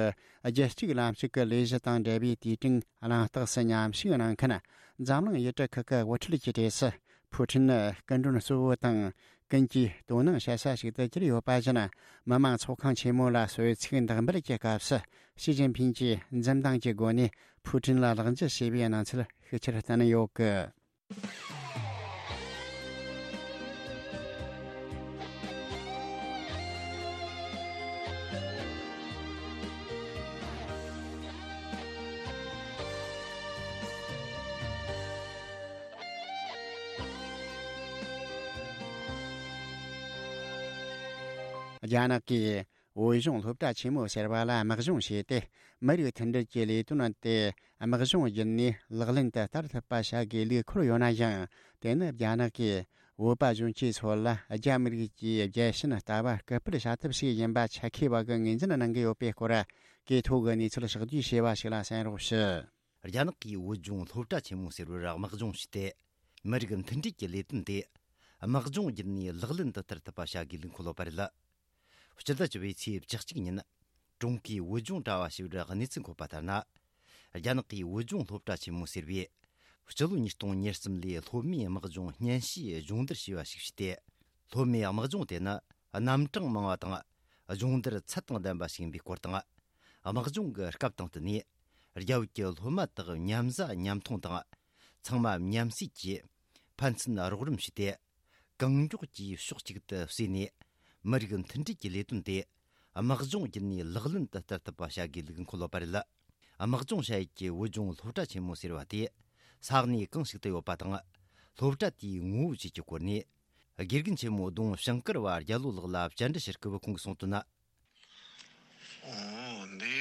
རྒྱལ་གཅེས་ལམ་ཞུགས་ཀྱི་ལས་གཞི་དང་འབྲེལ་བའི་དུས་དྲན་གླེང་སྟེགས་སུ་མཉམ་ཞུགས་གནང་མཁན་འཛམ་གླིང་ཡུལ་གྲུ་ཁག་གི་དབུ་ཁྲིད་ཀྱི་གྲས་སུ། ཕུའུ་ཁྲིན་ནི་སྐུ་མགྲོན་གཙོ་བོ་དང་ཀུན་གྱིས་དོ་སྣང་བྱེད་ས་ཞིག་ཏུ་གྱུར་ཡོད་པ་བཞིན། མི་དམངས་ཚོགས་ཁང་ཆེན་མོ་ལ་གསོལ་ཚིགས་འདེགས་འབུལ་གྱི་སྐབས་སུ། ཞི་ཅིན་ཕིན་གྱིས་འཛུམ་མདངས་ཀྱི་སྒོ་ནས་ཕུའུ་ཁྲིན་ལ་ལག་འཇུ་བྱས་པའི་གནས་ཚུལ་ཤུགས་ཆེར་བསྟན་ཡོད་ཀི། རྒྱ་ནག་གིས་བོད་གཞུང་སློབ་གྲྭ་ཆེན་མོ་ཟེར་བ་ལ་དམག་སྦྱོང་བྱས་ཏེ། མི་རིགས་མཐུན་སྒྲིལ་གྱི་ལས་དོན་དེ་དམག་སྦྱོང་བརྒྱུད་ནས་ལག་ལེན་དུ་བསྟར་ཐུབ་པ་བྱ་དགོས་ལུགས་འཁོད་ཡོད་ན་ཡང་། དེ་ནི་རྒྱ་ནག་གིས་བོད་པ་གཞོན་སྐྱེས་ཚོ་ལ་རྒྱ་མི་རིགས་ཀྱི་རྒྱལ་ཞེན་ལྟ་བ་སྐུལ་སྤེལ་བྱ་ཐབས་ཤིག་ཡིན་པ་ཆ་མཁས་པ་གིས་ངོས་འཛིན་གནང་གི་ཡོད་པའི་སྐོར། གོ་ཐོས་ཀྱི་གནས་ཚུལ་ཕྱོགས་བསྡུས་བྱས་པ་ཞིག་ལ་གསན་རོགས་ཞུ། རྒྱ་ནག་གིས་བོད་ལྗོངས་སློབ་གྲྭ་ཆེན་མོ་ཟེར་བར་དམག་སྦྱོང་བྱས་ཏེ། མི་རིགས་མཐུན་སྒྲིལ་གྱི་ལས་དོན་དེ་དམག་སྦྱོང་བརྒྱུད་ནས་ལག་ལེན་དུ་བསྟར་ཐུབ་པ་བྱ་དགོས་ལུགས་འཁོད་ཡོད་པ་རེད། སྤྱི་ཟླ་བཅུ་པའི་ཚེས་བཅུ་གཅིག་ཉིན། ཀྲུང་གོའི་བོད་ལྗོངས་དྲ་བ་ཞེས་པར་གནས་ཚུལ་འཁོད་པ་ལྟར་ན། རྒྱ་ནག་གིས་བོད་ལྗོངས་སློབ་གྲྭ་ཆེན་མོ་ཟེར་བའི་སྤྱི་ལོ་ཉིས་སྟོང་ཉེར་གསུམ་ལོའི་སློབ་མའི་དམག་སྦྱོང་སྙན་ཞུའི་སྦྱོང་བརྡར་ཞེས་པ་ཞིག་བྱས་ཏེ། སློབ་མའི་དམག་སྦྱོང་དེ་ནི་རྣམ་གྲངས་མང་བ་དང་ སྦྱོང་བརྡར་ཚད་དང་ལྡན་པ་ཞིག་ཡིན་པའི་སྐོར་དང་། དམག་སྦྱོང་གི་སྐབས་དང་བསྟུན་ནས་རྒྱ་བོད་ཀྱི་སློབ་མ་དག་མཉམ་ཟ་མཉམ་འཐུང་དང་། ཚང་མ་མཉམ་བསྲེས་ཀྱིས་ཕན་ཚུན་རོགས་རམ་བྱས་ཏེ། གང་མགྱོགས་ཀྱིས་ཕྱོགས་གཅིག་ཏུ་བསྲེས་ནས་མི་རིགས་མཐུན་སྒྲིལ་གྱི་ལས་དོན་དེ་དམག་སྦྱོང་བརྒྱུད་ནས་ལག་ལེན་དུ་བསྟར་ཐུབ་པ་བྱ་དགོས་ལུགས་འཁོད་ཡོད་པ་རེད། དམག་སྦྱོང་བྱ་ཡུལ་གྱི་བོད་ལྗོངས་སློབ་གྲྭ་ཆེན་མོ་ཟེར་བ་དེ་ས་གནས་གང་ཞིག་ཏུ་ཡོད་པ་དང་། སློབ་གྲྭ་དེའི་ངོ་བོ་བཅས་ཀྱི་སྐོར་ནས། དགེ་རྒན་ཆེན་མོ་ལྡོང་ཞིང་དཀར་བ་རྒྱལ་ལོ་ལགས་ལ་བཅར་འདྲི་ཞུ་སྐབས་ཁོང་གིས་གསུངས་དོན་ན། འོ་འདི་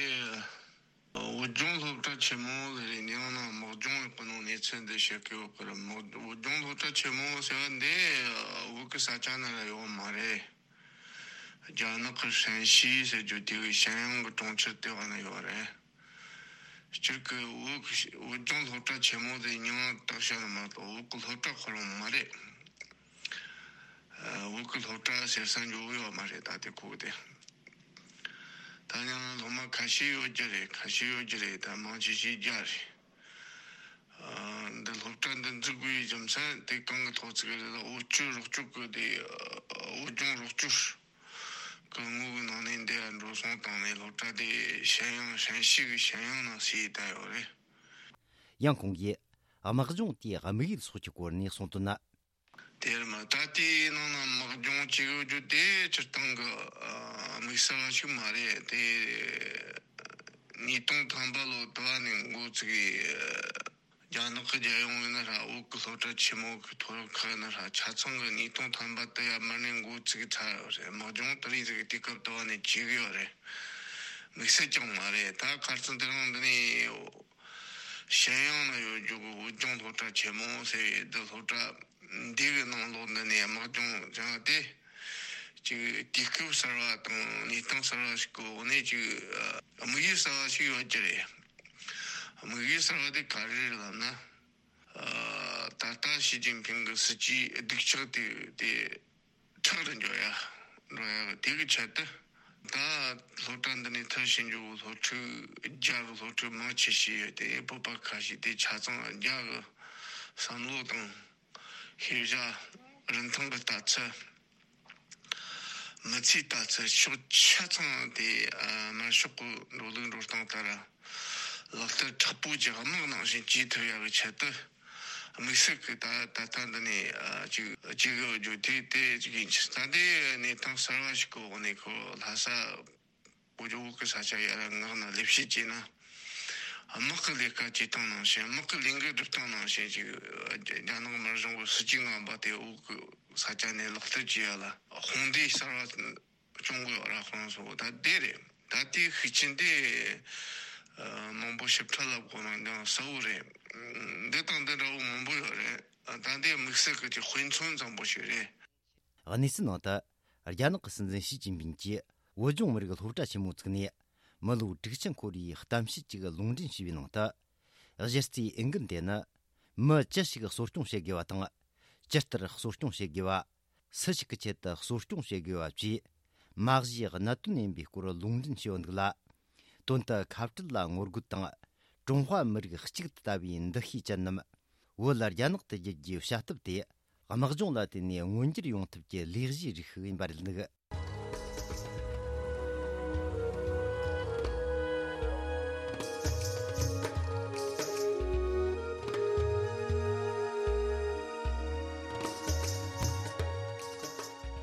བོད་ལྗོངས་སློབ་གྲྭ་ཆེན་མོ་ལ་རེད། ནི་ཡང་ན་དམག་སྦྱོང་ཡག་པོ་ནང་གནས་ཚུལ་འདི་བཤད་ཀྱི་ཡོད་པར། དམག་བོད་ལྗོངས་སློབ་གྲྭ་ཆེན་མོ་ཟེར་བ་འདི་བོད་ཀྱི་ས་ཆ་ནང་ལ་ཡོད་མ་རེད། རྒྱ་ནག་གི་ཧྲན་ཞི་ཟེར་རྒྱུ་དེ་གི་ཞན་ཡང་གི་གྲོང་ཁྱེར་དེ་བ་ན་ཡོད་རེད། སྤྱིར་གི་བོད་ཀྱི་བོད་ལྗོངས་སློབ་གྲྭ་ཆེན་མོ་དེ་མིང་བཏགས་བཞག་ནི་མ་གཏོགས་བོད་ཀྱི་སློབ་གྲྭ་ཁོ་རང་མ་རེད། ཨ། བོད་ཀྱི་སློབ་གྲྭ་ཟེར་ས་འཇོག་གི་ཡོད་མ་རེད། ད་དེ་ཁུག་དེ། ད་ཡང་སློབ་མ་ཁ་ཤས་ཡོད་རྒྱུ་རེད། ཁ་ཤས་ཡོད་རྒྱུ་རེད། ད་མང་ཆེ་ཤོས་རྒྱ་རེད། ཨ། འདི་སློབ་གྲྭ་འདི་འཛུགས་དགོས་ཡའི་རྒྱུ་མཚན་དེ་གང་གི་ཐོག་བཙུགས་རེད། ད་འོ་སྐྱོར་རོགས་སྐྱོར་གི་དེ། ཨ། བོད་ལྗོངས་རོགས་སྐྱོར་གི་ངོས་ཀྱི་ནང་ནས་འདི་འགྲོ་སོང་བཏང་ནས་སློབ་གྲྭ་དེ་ཞན་ཡང་ཧྲན་ཞི་གི་ཞན་ཡང་ནང་ཟེར་བསྡད་ཡོད་རེད། ཡང་ཁོང་གིས་དམག་སྦྱོང་དེའི་དམིགས་ཡུལ་སོགས་ཀྱི་སྐོར་ནས་གསུངས་དོན་ན། དེར་མ་ད་ལྟའི་ནང་ན་དམག་སྦྱོང་བྱེད་དགོས་རྒྱུ་དེ་སྤྱིར་བཏང་གི། ཨ། དམིགས་བསལ་བ་ཞིག་མ་རེད་དེ། ཉིས་སྟོང་ཐམ་པ་ལོ་དུ་བ་ནས་འགོ་བཙུགས་ཡི། རྒྱ་ནག་གི་རྒྱལ་ཡོངས་ཡིན་ན་ར་བོད་ཀྱི་སློབ་གྲྭ་ཆེན་མོ་གི་མཐོ་སློབ་ཁག་ཡིན་ན་ར་ཆ་ཚང་གི་ཉིས་སྟོང་ཐམ་པ་དུ་ཡར་མར་ནས་འགོ་བཙུགས་ཚར་ཡོད་རེད། དམག་སྦྱོང་དེ་རིང་ཟིག་གི་དུས་སྐབས་དུ་བ་ནས་བྱེད་གི་ཡོད་རེད། དམིགས་བསལ་ཀྱང་མ་རེད། ད་ཁ་སང་དེ་རིང་འདི་ནས་ཞན་ཡང་ན་ཡོད་རྒྱུ་གི་བོད་ལྗོངས་སློབ་གྲྭ་ཆེན་མོ་ཟེར་བའི་འདི་སློབ་གྲྭ་འདི་གི་ནང་ལོགས་འདི་ནས་དམག་སྦྱོང་སྦྱངས་ཏེ། ཅིག་དུས་སྐབས་གསར་བ་དང་གནས་སྟངས་གསར་བ་ཞིག་གི་འོག་ནས་ཅིག་ཨ། དམིགས་ཡུལ་གསར་བ་ཞིག་ཡོད་རྒྱུ་རེད། དམིགས་ཡུལ་གསར་བ་དེ་ག་རེ་རེད་ལབ་ན། ཨ། ད་ལྟ་ཞི་ཅིན་ཕིང་གི་སྲིད་ཇུས་སྡུག་ཆག་དེ་དེ་ཁྲག་རུ་འཇོག་ཡ་འགྲོ་ཡ་གི་དེ་གི་ཆེད་དུ། ད་སློབ་གྲྭ་འདི་ནས་མཐར་ཕྱིན་རྒྱུ་སློབ་ཕྲུག་རྒྱ་གི་སློབ་ཕྲུག་མང་ཆེ་ཤོས་ཡོད་དེ། བོད་པ་ཁ་ཤས་དེ་ཆ་ཚང་རྒྱ་གི་བསམ་བློ་དང་ཤེས་བྱ། རིན་ཐང་གི་ལྟ་ཚུལ། མི་ཚེའི་ལྟ་ཚུལ་ཕྱོགས་ཆ་ཚང་དེ། ཨ། དམར་ཤོག་གི་འགྲོ་ལུགས་འགྲོ་སྟངས་ལྟར་ལག་བསྟར་དྲག་པོ་གྱི་དམག་ནང་བཞིན་བྱེད་ཐུབ་ཡག་གི་ཆེད་དུ། དམིགས་བསལ་གྱི་ད་ད་ལྟ་འདི་ནས། ཨ། ཅིག་ཅིག་ཡོད་རྒྱུ་དེ་དེ་ཅིག་ཡིན་ཕྱིར། ད་ལྟའི་གནས་སྟངས་གསར་བ་ཞིག་གི་འོག་ནས་ཁོ་ལྷ་ས་བོད་ལྗོངས་བོད་ཀྱི་ས་ཆ་ཡར་མངགས་ནས་ལས་བྱེད་བྱས་ན། དམག་གི་ལས་ཀ་བྱེད་སྟངས་ནང་བཞིན། དམག་གི་ལས་འགུལ་སྒྲུབ་སྟངས་ནང་བཞིན་ཅིག་རྒྱ་ནག་དམར་གཞུང་གི་སྲིད་ཇུས་ངན་པ་དེ་བོད་ཀྱི་ས་ཆ་ནས་ལག་བསྟར་བྱེད་ཡ་ལ་དཔུང་སྡེ་གསར་བ་སྐྱོང་དགོས་ཡོད་ར། ཁོང་ཚོ་ད་དེ་རེད། ད་ལྟའི་ཤུགས་རྐྱེན་དེ། ཨ། མང་པོ་ཞིབ་ཕྲ་ལབ་དགོས་ན་ཡང་གསལ་བོ་རེད། འདི་དང་འདི་འདྲ་བོ་མང་པོ་ཡོད་རེད། ད་ལྟའི་དམིགས་བསལ་གྱི་དཔེ་མཚོན་ཙམ་པོ་ཞིག་རེད། གནས་ཚུལ་ནང་དུ། རྒྱ་ནག་གི་སྲིད་འཛིན་ཞི་ཅིན་ཕིང་གིས་བོད་ལྗོངས་མི་རིགས་སློབ་གྲྭ་ཆེན་མོ་བཙུགས་ནས། མི་ལོ་དྲུག་ཅུ་འཁོར་བའི་གཏམ་བཤད་ཅིག་ལུང་འདྲེན་བྱས་པའི་ནང་དུ། གཞི་རྩའི་འོས་འགན་དེ་ནི། མི་ཅི་ཞིག་གསོ་སྐྱོང་བྱེད་དགོས་པ་དང་། ཇི་ལྟར་གསོ་སྐྱོང་བྱེད་དགོས་པ། སུ་ཞིག་གི་ཆེད་དུ་གསོ་སྐྱོང་བྱེད་དགོས་པ་བཅས། མ་གཞི་གནད་དོན་ཡིན་པའི་སྐོར་ལུང་འདྲེན་བྱས་ཡོད་འདུག་ལ། དོན་དུ་ཁ་བྲལ་ལ་ངོ་རྒོལ་དང་། ཀྲུང་ཧྭ་མི་རིགས་གཅིག་ཏུ་ལྟ་བའི་འདུ་ཤེས་ཅན་རྣམས་བོད་ལ་རྒྱ་ནག་ཏུ་བསྒྱུར་རྒྱུའི་བྱ་ཐབས་དེ། དམག་སྦྱོང་ལ་བརྟེན་ནས་མངོན་འགྱུར་ཡོང་ཐབས་ཀྱི་ལས་གཞིའི་རིགས་ཤིག་ཡིན་པ་རེད་འདུག།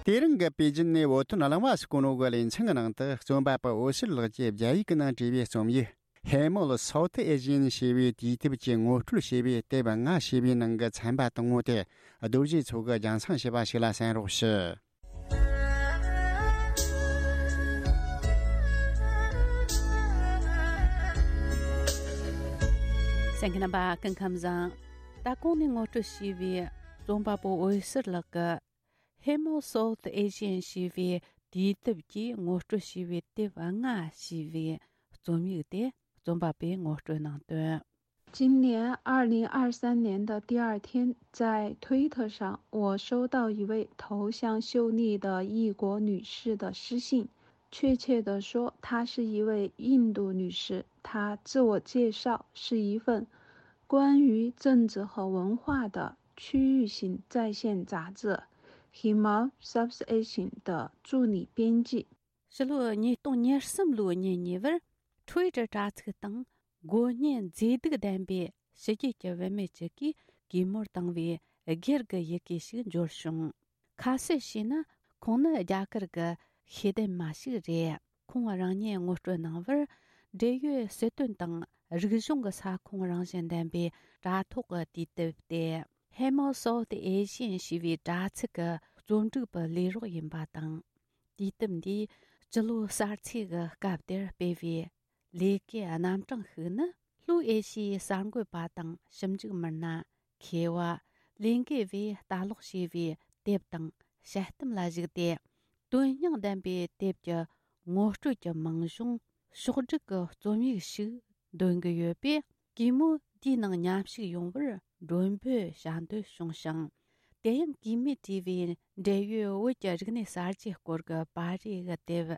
དེ་རིང་གི་པེ་ཅིན་ནས་བོད་དོན་གླེང་བ་སྐུ་ནོ་གི་ལེ་ཚན་གྱི་ནང་དུ། རྩོམ་པ་པོ་འོད་ཟེར་ལགས་ཀྱིས་རྒྱ་ཡིག་གི་ནང་བྲིས་པའི་རྩོམ་ཡིག Hemel South Asian ཞེས་པའི་དུས་དེབ་ཀྱི་ངོ་སྤྲོད་ཞེས་པའི་དེབ་ལྔ་ཞེས་པའི་ནང་གི་ཚན་པ་དང་པོ་དེ་རྡོ་རྗེ་མཚོ་གིས་རྒྱང་སྲིང་བྱས་པ་ཞིག་ལ་གསན་རོགས་ཞུ། གསན་མཁན་རྣམ་པ་སྐུ་ཁམས་བཟང་། ད་གོང་ནས་ངོ་སྤྲོད་བྱས་པའི་རྩོམ་པ་པོ་འོད་ཟེར་ལགས་ཀྱི་Hemel South Asian ཞེས་པའི་དུས་དེབ་ཀྱི་ངོ་སྤྲོད་བྱས་པའི་དེབ་ལྔ་ཞེས་པའི་རྩོམ་ཡིག་དེ་རྩོམ་པ་པོས་ངོ་སྤྲོད་གནང་དོན། 今年二零二三年的第二天，在推特上，我收到一位头像秀丽的异国女士的私信。确切地说，她是一位印度女士。她自我介绍是一份关于政治和文化的区域性在线杂志《Himar South Asian》的助理编辑。ཕྱི་ལོ་ཉིས་སྟོང་ཉེར་གསུམ་ལོའི་ཉིན་གཉིས་པར་Twitter་དྲ་ཚིགས་སྟེང་དགོས་ངེས་མཛེས་སྡུག་ལྡན་པའི་ཕྱི་རྒྱལ་གྱི་བུད་མེད་ཅིག་གིས་གུས་མོར་བཏང་བའི་སྒེར་གྱི་ཡི་གེ་ཞིག་འབྱོར་བྱུང་། ཁ་གསལ་བྱས་ན་ཁོང་ནི་རྒྱ་གར་གྱི་ཤེས་ལྡན་མ་ཞིག་རེད། ཁོང་རང་ཉིད་ངོ་སྤྲོད་གནང་བར་འབྲེལ་ཡོད་སྲིད་དོན་དང་རིག་གཞུང་གི་ས་ཁོངས་རང་བཞིན་ལྡན་པའི་དྲ་ཐོག་གི་དུས་དེབ་སྟེ། Hemo South Asian ཞེས་པའི་དྲ་ཚིགས་ཀྱི་རྩོམ་སྒྲིག་པའི་ལས་རོགས་ཡིན་པ་དང་། དུས་དེབ་འདིའི་སྤྱི་ལོ་གསར་ཚེས་ཀྱི་སྐབས་དེར་སྤེལ་བའི་ལས་ཀའི་རྣམ་གྲངས་ཤིག་ནི། ལྷོའི་ཨེ་ཤི་ཡའི་གསར་འགོད་པ་དང་ཞིབ་འཇུག་མི་སྣ། མཁས་པ། ལས་འགུལ་བས་ལྟ་ཀློག་བྱས་པའི་དེབ་དང་དཔྱད་གཏམ་ལ་གཞིགས་ཏེ། དོན་སྙིང་ལྡན་པའི་དེབ་ཀྱི་ངོ་སྤྲོད་ཀྱི་མིང་གཞུང་ཕྱོགས་བསྒྲིགས་ཀྱི་རྩོམ་ཡིག་ཞིག་འདོན་གྱི་ཡོད་པས། གུས་མོ་དེའི་ནང་མཉམ་ཞུགས་ཡོང་བར་མགྲོན་འབོད་བྱ་འདོད་བྱུང་ཞིང་། དེ་ཡང་གུས་མོས་བྲིས་པའི་འབྲེལ་ཡོད་བོད་ཀྱི་རིག་གནས་གསར་བརྗེའི་སྐོར་གྱི་པར་རིས་ཀྱི་དེབ།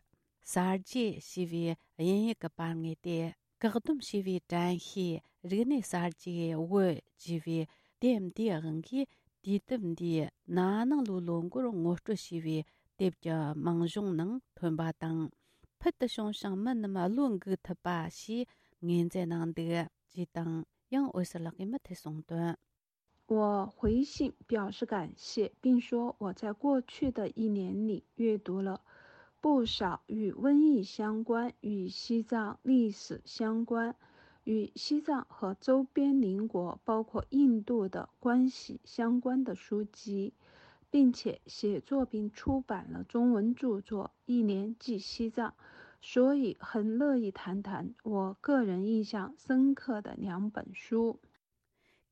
གསར་བརྗེ་ཞེས་པའི་དབྱིན་ཡིག་གི་པར་ངོས་ཏེ། བཀག་སྡོམ་བྱས་པའི་དྲན་ཤེས་རིག་གནས་གསར་བརྗེའི་བོད་ཅེས་པའི་དེབ་འདིའི་དབང་གིས། དུས་དེབ་འདིའི་ན་ནིང་ལོའི་ལོ་འགོར་ངོ་སྤྲོད་བྱས་པའི་དེབ་ཀྱི་མིང་གཞུང་ནང་ཐོན་པ་དང་། ཕུལ་དུ་བྱུང་ཞིང་མི་རྣམས་བློ་འགུག་ཐུབ་པ་ཞེས་ངོས་འཛིན་གནང་འདུག་ཅེས་དང་། ཡང་འོད་ཟེར་ལགས་ཀྱིས་མུ་མཐུད་གསུངས་དོན། 我回信表示感谢，并说我在过去的一年里阅读了不少与瘟疫相关、与西藏历史相关、与西藏和周边邻国，包括印度的关系相关的书籍，并且写作并出版了中文著作《一年记西藏》，所以很乐意谈谈我个人印象深刻的两本书。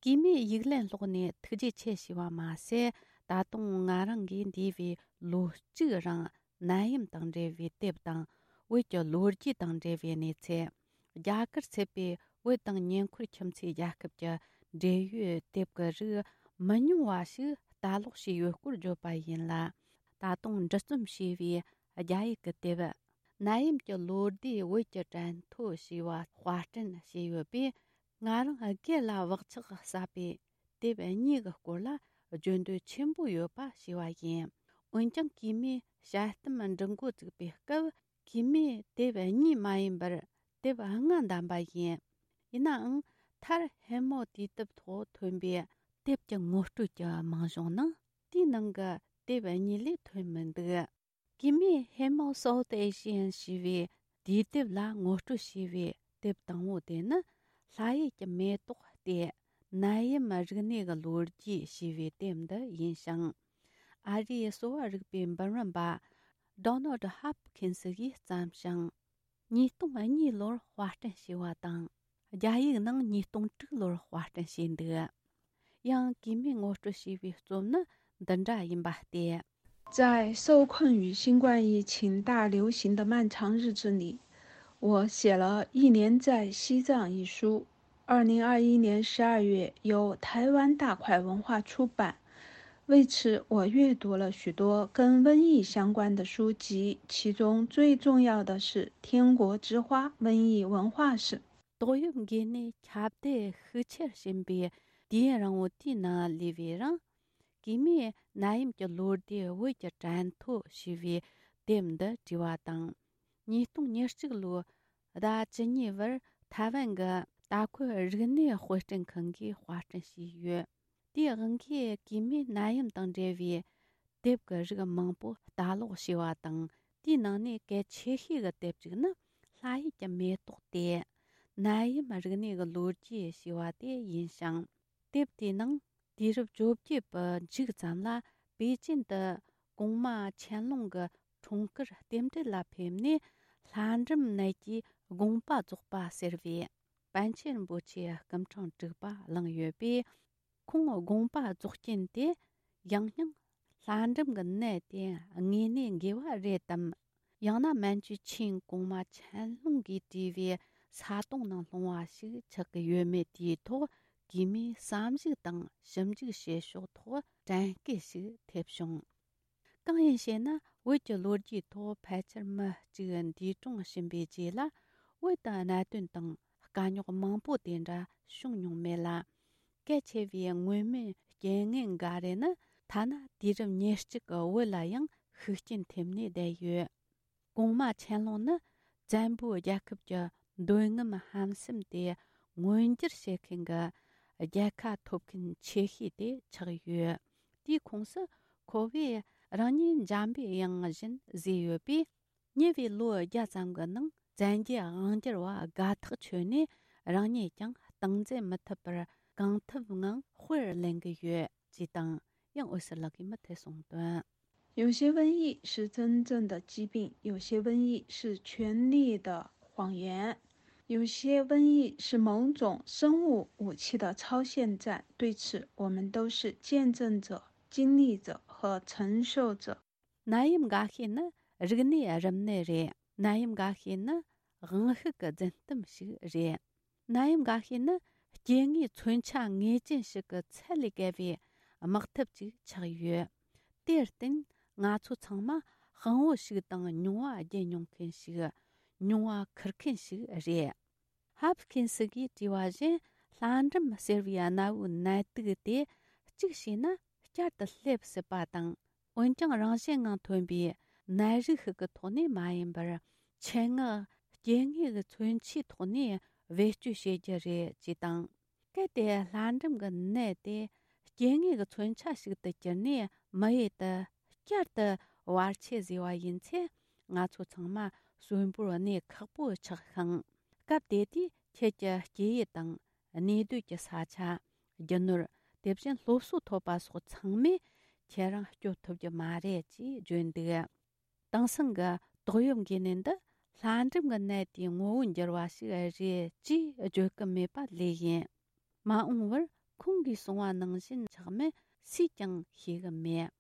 གུས་མོས་ཡིག་ལན་སློག་ནས་ཐུགས་རྗེ་ཆེ་ཞུས་པ་མ་ཟད། ད་དུང་ང་རང་གིས་འདས་པའི་ལོ་གཅིག་རིང་ནད་ཡམས་དང་འབྲེལ་བའི་དེབ་དང་། བོད་ཀྱི་ལོ་རྒྱུས་དང་འབྲེལ་བའི་གནས་ཚུལ། རྒྱ་གར་ཚུད་པའི་བོད་དང་ཉེ་འཁོར་ཁྱིམ་མཚེས་རྒྱལ་ཁབ་ཀྱི་འབྲེལ་ཡོད་དེབ་ཀྱི་རིགས་མི་ཉུང་བ་ཞིག་ལྟ་ཀློག་བྱས་ཡོད་སྐོར་བརྗོད་པ་ཡིན་ལ། ད་དུང་འབྲི་རྩོམ་བྱས་པའི་རྒྱ་ཡིག་གི་དེབ། ནད་ཡམས་ཀྱི་ལོ་ཟླའི་བོད་ཀྱི་དྲན་ཐོ་ཞེས་པ་དཔར་སྐྲུན་བྱས་ཡོད་པས། ང་རང་སྒེར་ལ་བག་ཆགས་ཟབ་པའི་དེབ་གཉིས་ཀྱི་སྐོར་ལ་བརྗོད་འདོད་ཆེན་པོ་ཡོད་པ་ཞུ་བ་ཡིན། འོན་ཀྱང་གུས་མོས་དཔྱད་གཏམ་འབྲི་འགོ་བཙུགས་པའི་སྐབས། གུས་མོས་དེབ་གཉིས་མ་ཡིན་པར་དེབ་ལྔ་བདམས་པ་ཡིན། ཡིན་ནའང་མཐར་ཧེ་མོ་དུས་དེབ་ཐོག་ཐོན་པའི་དེབ་ཀྱི་ངོ་སྤྲོད་ཀྱི་མིང་གཞུང་ནང་དེའི་ནང་གི་དེབ་གཉིས་ལས་ཐོན་མི་འདུག་གུས་མོས་ཧེ་མོ་South Asian ཞེས་པའི་དུས་དེབ་ལ་ངོ་སྤྲོད་བྱས་པའི་དེབ་དང་པོ་དེ་ནི། ལྷ་ཡུལ་གྱི་མེ་ཏོག་སྟེ། ནད་ཡམས་རིག་གནས་ཀྱི་ལོ་རྒྱུས་ཞེས་པའི་དེབ་འདི་ཡིན་ཞིང་། ཨ་རིའི་གསོ་བ་རིག་པའི་འབུམ་རམས་པ་Donald Hopkins གིས་བརྩམས་ཤིང་། ཉིས་སྟོང་གཉིས་ལོར་དཔར་སྐྲུན་བྱས་པ་དང་། རྒྱ་ཡིག་ནང་ཉིས་སྟོང་དྲུག་ལོར་དཔར་སྐྲུན་བྱས་འདུག་ཡང་གུས་མོས་ངོ་སྤྲོད་བྱས་པའི་རྩོམ་ནི་འདི་འདྲ་ཡིན་པ་སྟེ། 在受困于新冠疫情大流行的漫长日子里，我写了《一年在西藏》一书。二零二一年十二月由台湾大块文化出版。为此，我阅读了许多跟瘟疫相关的书籍，其中最重要的是《天国之花：瘟疫文化史》。 ཏོག་དབྱིབས་འགོས་ནད་ཁྱབ་གདལ་ཤུགས་ཆེར་ཕྱིན་པའི་དུས་ཡུན་རིང་བོ་དེའི་ནང་ལུས་པའི་རིང་། གུས་མོས་ནད་ཡམས་ཀྱི་ལོ་ཟླའི་བོད་ཀྱི་དྲན་ཐོ་ཞེས་པའི་དེབ་འདི་བྲིས་པ་དང་། ཉིས་སྟོང་ཉེར་གཅིག་ལོའི་ཟླ་བཅུ་གཉིས་པར་ཐའེ་ཝན་གྱི་ལྟ་སྐོར་རིག་གནས་དཔར་སྐྲུན་ཁང་གིས་དཔར་སྐྲུན་བྱས་ཡོད། དེའི་དབང་གིས་གུས་མོས་ནད་ཡམས་དང་འབྲེལ་བའི་དེབ་ཀྱི་རིགས་མང་པོ་ལྟ་ཀློག་བྱས་པ་དང་། དེའི་ནང་ནས་གལ་ཆེ་ཤོས་ཀྱི་དེབ་ཅིག་ནི་ལྷ་ཡུལ་གྱི་མེ་ཏོག་སྟེ། ནད་ཡམས་རིག་གནས་ཀྱི་ལོ་རྒྱུས་ཞེས་པ་དེ་ཡིན་ཞིང་། དེབ་དེའི་ནང་དུས་རབས་བཅོ་བརྒྱད་པའི་མཇུག་ཙམ་ལ་པེ་ཅིན་དུ་གོང་མ་ཆན་ལུང་གི་འཁྲུངས་སྐར་རྟེན་འབྲེལ་ལ་ཕེབས་ནས། ལྷ་འབྲུམ་ནད་ཀྱི་དགོངས་པ་རྫོགས་པ་ཟེར་བའི་པཎ་ཆེན་རིན་པོ་ཆེའི་སྐུ་ཕྲེང་དྲུག་པ་བླངས་ཡོད་པས། ཁོང་དགོངས་པ་རྫོགས་རྐྱེན་དེ་ཡང་སྙིང་ལྷ་འབྲུམ་གྱི་ནད་དེ་དངོས་གནས་འགོས་པ་རེད་དམ། ཡང་ན་མན་ཇུ་ཆིང་གོང་མ་ཆན་ལུང་གིས་བྲིས་པའི་ས་དོང་ནང་ལྷུང་བ་ཞིག་ཆགས་ཀྱི་ཡོད་མེད་དེའི་ཐོག་གུས་མོས་བསམ་གཞིག་དང་ཞིབ་འཇུག་བྱེད་ཕྱོགས་ཐོག་དྲན་སྐུལ་ཞིག་ཐེབས་བྱུང་། གང་ཡིན་ཞེ་ན། བོད་ཀྱི་ལོ་རྒྱུས་ཐོག་ཕལ་ཆེར་མི་གཅིག་འདས་གྲོངས་ཕྱིན་པའི་རྗེས་ལ། བོད་དུ་གནད་དོན་དང་དཀའ་རྙོག་མང་པོ་དེ་འདྲ་བྱུང་མྱོང་མེད་ལ། གལ་ཆེ་བའི་མངོན་མིན་རྐྱེན་ངན་འགའ་རེ་ནི་ཐ་ན་དུས་རབས་ཉེར་གཅིག་གི་བོད་ལ་ཡང་ཤུགས་རྐྱེན་ཐེབས་ནས་བསྡད་ཡོད། གོང་མ་ཆན་ལུང་ནི་བཙན་པོའི་རྒྱལ་ཁབ་ཀྱི་འདོད་རྔམ་ཧམ་སེམས་དེ་མངོན་འགྱུར་བྱེད་མཁན་གྱི་རྒྱལ་ཁ་ཐོབ་མཁན་ཆེ་ཤོས་དེ་ཆགས་ཡོད། དེའི་ཁོངས་སུ་ཁོ་བོས་རང་ཉིད་འཇམ་པའི་དབྱངས་བཞིན་བཟོས་ཡོད་པས། ཉེ་བའི་ལོ་བརྒྱ་ཙམ་གྱི་ནང་བཙན་རྒྱལ་དབང་སྒྱུར་བ་དགའ་ཐག་ཆོད་ནས་རང་ཉིད་ཀྱང་སྟངས་འཛིན་མི་ཐུབ་པར་གང་ཐུབ་ངང་དཔེར་ལེན་གྱི་ཡོད་ཅེས་དང་། ཡང་འོད་ཟེར་ལགས་ཀྱིས་མུ་མཐུད་གསུངས་དོན། 有些瘟疫是真正的疾病，有些瘟疫是权力的谎言，有些瘟疫是某种生物武器的超限战。对此，我们都是见证者、经历者和承受者。 ནད་ཡམས་འགའ་ཤས་ནི་རིག་གནས་རིམས་ནད་རེད། ནད་ཡམས་འགའ་ཤས་ནི་དབང་ཤུགས་ཀྱི་རྫུན་གཏམ་ཞིག་རེད། ནད་ཡམས་འགའ་ཤས་ནི་སྐྱེ་དངོས་མཚོན་ཆ་ངེས་ཅན་ཞིག་གི་ཚད་ལས་བརྒལ་བའི་དམག་འཐབ་ཅིག་ཆགས་ཡོད། དེར་བརྟེན་ང་ཚོ་ཚང་མ་དཔང་བོ་ཞིག་དང་་མྱོང་བ་བརྒྱུད་མྱོང་མཁན་ཞིག་མྱོང་བ་འཁུར་མཁན་ཞིག་རེད། ཧབ་ཀིན་སི་གིས་བྲིས་པ་བཞིན་ལྷ་འབྲུམ་ཟེར་བའི་གནའ་བོའི་ནད་དུག་དེ་གཅིག་བྱས་ན་བསྐྱར་དུ་སླེབས་སྲིད་པ་དང་། འོན་ཀྱང་རང་བཞིན་ངང་ཐོན་པའི་ནད་རིགས་ཤིག་གི་ཐོག་ནས་མ་ཡིན་པར། ཆེད་མངགས་སྐྱེ་དངོས་ཀྱི་མཚོན་ཆའི་ཐོག་ནས་བེད་སྤྱོད་བྱེད་རྒྱུ་རེད་ཅེས་དང་། གལ་ཏེ་ལྷ་འབྲུམ་གྱི་ནད་དེ་སྐྱེ་དངོས་ཀྱི་མཚོན་ཆ་ཞིག་ཏུ་གྱུར་ནས་མི་ཡུལ་དུ་བསྐྱར་དུ་བར་ཆད་བཟོས་པ་ཡིན་ཚེ། ང་ཚོ་ཚང་མ་གསོན་པོར་གནས་ཁག་པོ་ཆགས་ཤིང་། སྐབས་དེ་དུས་ཁྱེད་ཀྱི་སྐྱེ་ཡུལ་དང་། གནས་སྡོད་ཀྱི་ས་ཆ། རྒྱུ་ནོར། དེ་བཞིན་སློབ་གསོ་ཐོབ་པ་སོགས་ཚང་མས་ཁྱེད་རང་སྐྱོབ་ཐུབ་རྒྱུ་མ་རེད་ཅེས་བརྗོད་འདུག། དེང་སང་གི་ཏོག་དབྱིབས་འགོས་ནད་འདི་ལྷ་འབྲུམ་གྱི་ནད་དེའི་ངོ་བོ་འགྱུར་བ་ཞིག་རེད་ཅེས་བརྗོད་ཀྱི་མེད་པ་ལོས་ཡིན། མ་འོངས་པར་ཁོང་གིས་གསུངས་པ་ནང་བཞིན་ཆགས་མིན་སུས་ཀྱང་ཤེས་ཀྱི་མེད།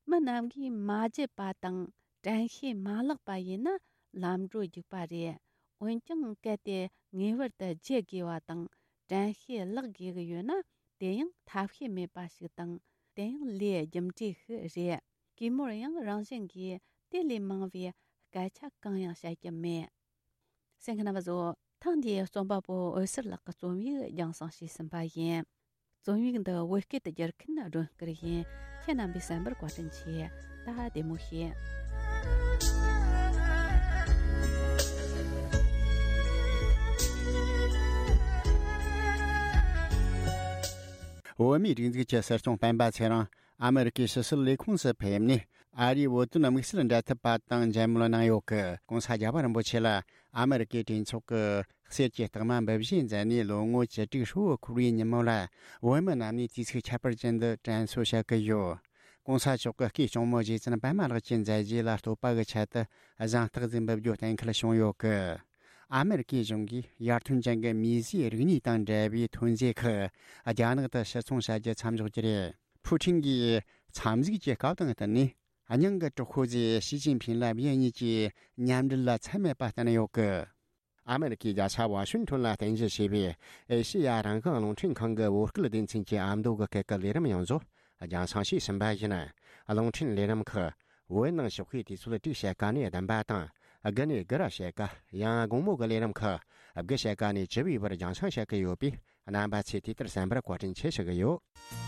མི་རྣམས་ཀྱིས་མ་བརྗེད་པ་དང་དྲན་ཤེས་མ་བརླག་པ་ཡིན་ན་ལམ་འགྲོ་རྒྱུག་པ་རེད། འོན་ཀྱང་གལ་ཏེ་ངེས་པར་དུ་བརྗེད་དགོས་པ་དང་དྲན་ཤེས་བརླག་དགོས་ཀྱི་ཡོད་ན། དེ་ཡང་ཐབས་ཤེས་མེད་པ་ཞིག་དང་། དེ་ཡང་ལས་རྒྱུ་འབྲས་ཤིག་རེད། གུས་མོར་ཡང་རང་བཞིན་གྱིས་དེ་ལས་མང་བའི་སྐད་ཆ་གང་ཡང་བཤད་ཀྱི་མེད། གསན་མཁན་རྣམ་པ་ཚོ། ཐེངས་འདིའི་རྩོམ་པ་པོ་འོད་ཟེར་ལགས་ཀྱི་རྩོམ་ཡིག་རྒྱང་སྲིང་ཞུས་ཟིན་པ་ཡིན། རྩོམ་ཡིག་འདི་བོད་སྐད་དུ་བསྒྱུར་མཁན་སྒྲོན་སྐུར་ཡིན། ཁྱེད་རྣམ་པས་གསན་པར་བཀའ་དྲིན་ཆེ། ད་བདེ་མོ་བྱོས། བོད་མིའི་སྒྲིག་འཛུགས་ཀྱི་སྲིད་སྐྱོང་སྤེན་པ་ཚེ་རིང་ཨ་མེ་རི་ཀའི་ཕྱི་སྲིད་ལས་ཁུངས་སུ་ཕེབས་ནས། ཨ་རིའི་བོད་དོན་དམིགས་བསལ་འབྲེལ་མཐུད་པ་དང་མཇལ་མོལ་གནང་ཡོད་ཀི། ྋགོང་ས་རྒྱལ་བ་རིན་པོ་ཆེ་ལ་ཨ་མེ་རི་ཀའི་གྲོས་ཚོགས་ཀྱི་གསེར་གྱི་རྟགས་མ་འབུལ་བཞེས་མཛད་ནས་ལོ་ངོ་བཅུ་དྲུག་ཧྲིལ་བོ་འཁོར་བའི་ཉིན་མོ་ལ། བོད་མི་རྣམས་ནས་དུས་ཚིགས་ཁྱད་པར་ཅན་དུ་དྲན་གསོ་བྱ་གི་ཡོད། ྋགོང་ས་མཆོག་གི་སྐུའི་གཅུང་མོ་རྗེ་བཙུན་པད་མ་ལགས་ཀྱི་མཛད་རྗེས་ལ་བསྟོད་པ་གི་ཆེད་དུ་གཟེངས་རྟགས་ཟིག་འབུལ་རྒྱུ་གཏན་འཁེལ་བྱུང་ཡོད་ཀི། ཨ་མེ་རི་ཀའི་གཞུང་གིས་ཡར་ཐོན་ཅན་གྱི་མིས་བཟོས་རིག་གནས་དང་འབྲེལ་བའི་ཐོན་རྫས་ཁག་རྒྱ་ནག་ཏུ་ཕྱིར་ཚོང་བྱ་རྒྱུ་མཚམས་འཇོག་རྒྱུ་རེད། ཕུའུ་ཁྲིན་གྱིས་མཚམས་གཟིགས་ཀྱི་སྐབས་དང་བསྟུན་ནས། སྙིང་གི་གྲོགས་པོ་ཟེར་ཞི་ཅིན་ཕིང་ལ་ཡུལ་གཉིས་ཀྱི་མཉམ་འབྲེལ་ལ་ཚད་མེད་པ་བསྟན་ཡོད་ཀི། ཨ་མེ་རི་ཀའི་རྒྱལ་ས་ཝ་ཤིང་ཊོན་ལ་རྟེན་གཞི་བྱས་པའི་ཨེ་ཤེ་ཡ་རང་དབང་རླུང་འཕྲིན་ཁང་གི་བོད་སྐད་སྡེ་ཚན་གྱི་ཨ་མདོ་གི་སྐད་ཀྱི་ལས་རིམ་ཡོངས་རྫོགས་རྒྱང་སྲིང་ཞུས་ཟིན་པ་ཡིན། རླུང་འཕྲིན་ལས་རིམ་ཁག་བོད་ནང་ཞོགས་ཀའི་དུས་ཚོད་དྲུག་ཕྱེད་ཀ་ནས་བདུན་པ་དང་། དགུ་ནས་དགུ་ར་ཕྱེད་ཀ། ཡང་དགོང་མོ་གི་ལས་རིམ་ཁག་དགུ་ཕྱེད་ཀ་ནས་བཅུ་པའི་བར་རྒྱང་སྲིང་བྱེད་ཀྱི་ཡོད་པས། རྣམ་པ་ཚོས་དུས་ལྟར་གསན་པར་བཀའ་དྲིན་ཆེ་ཞུ་གི་ཡོད།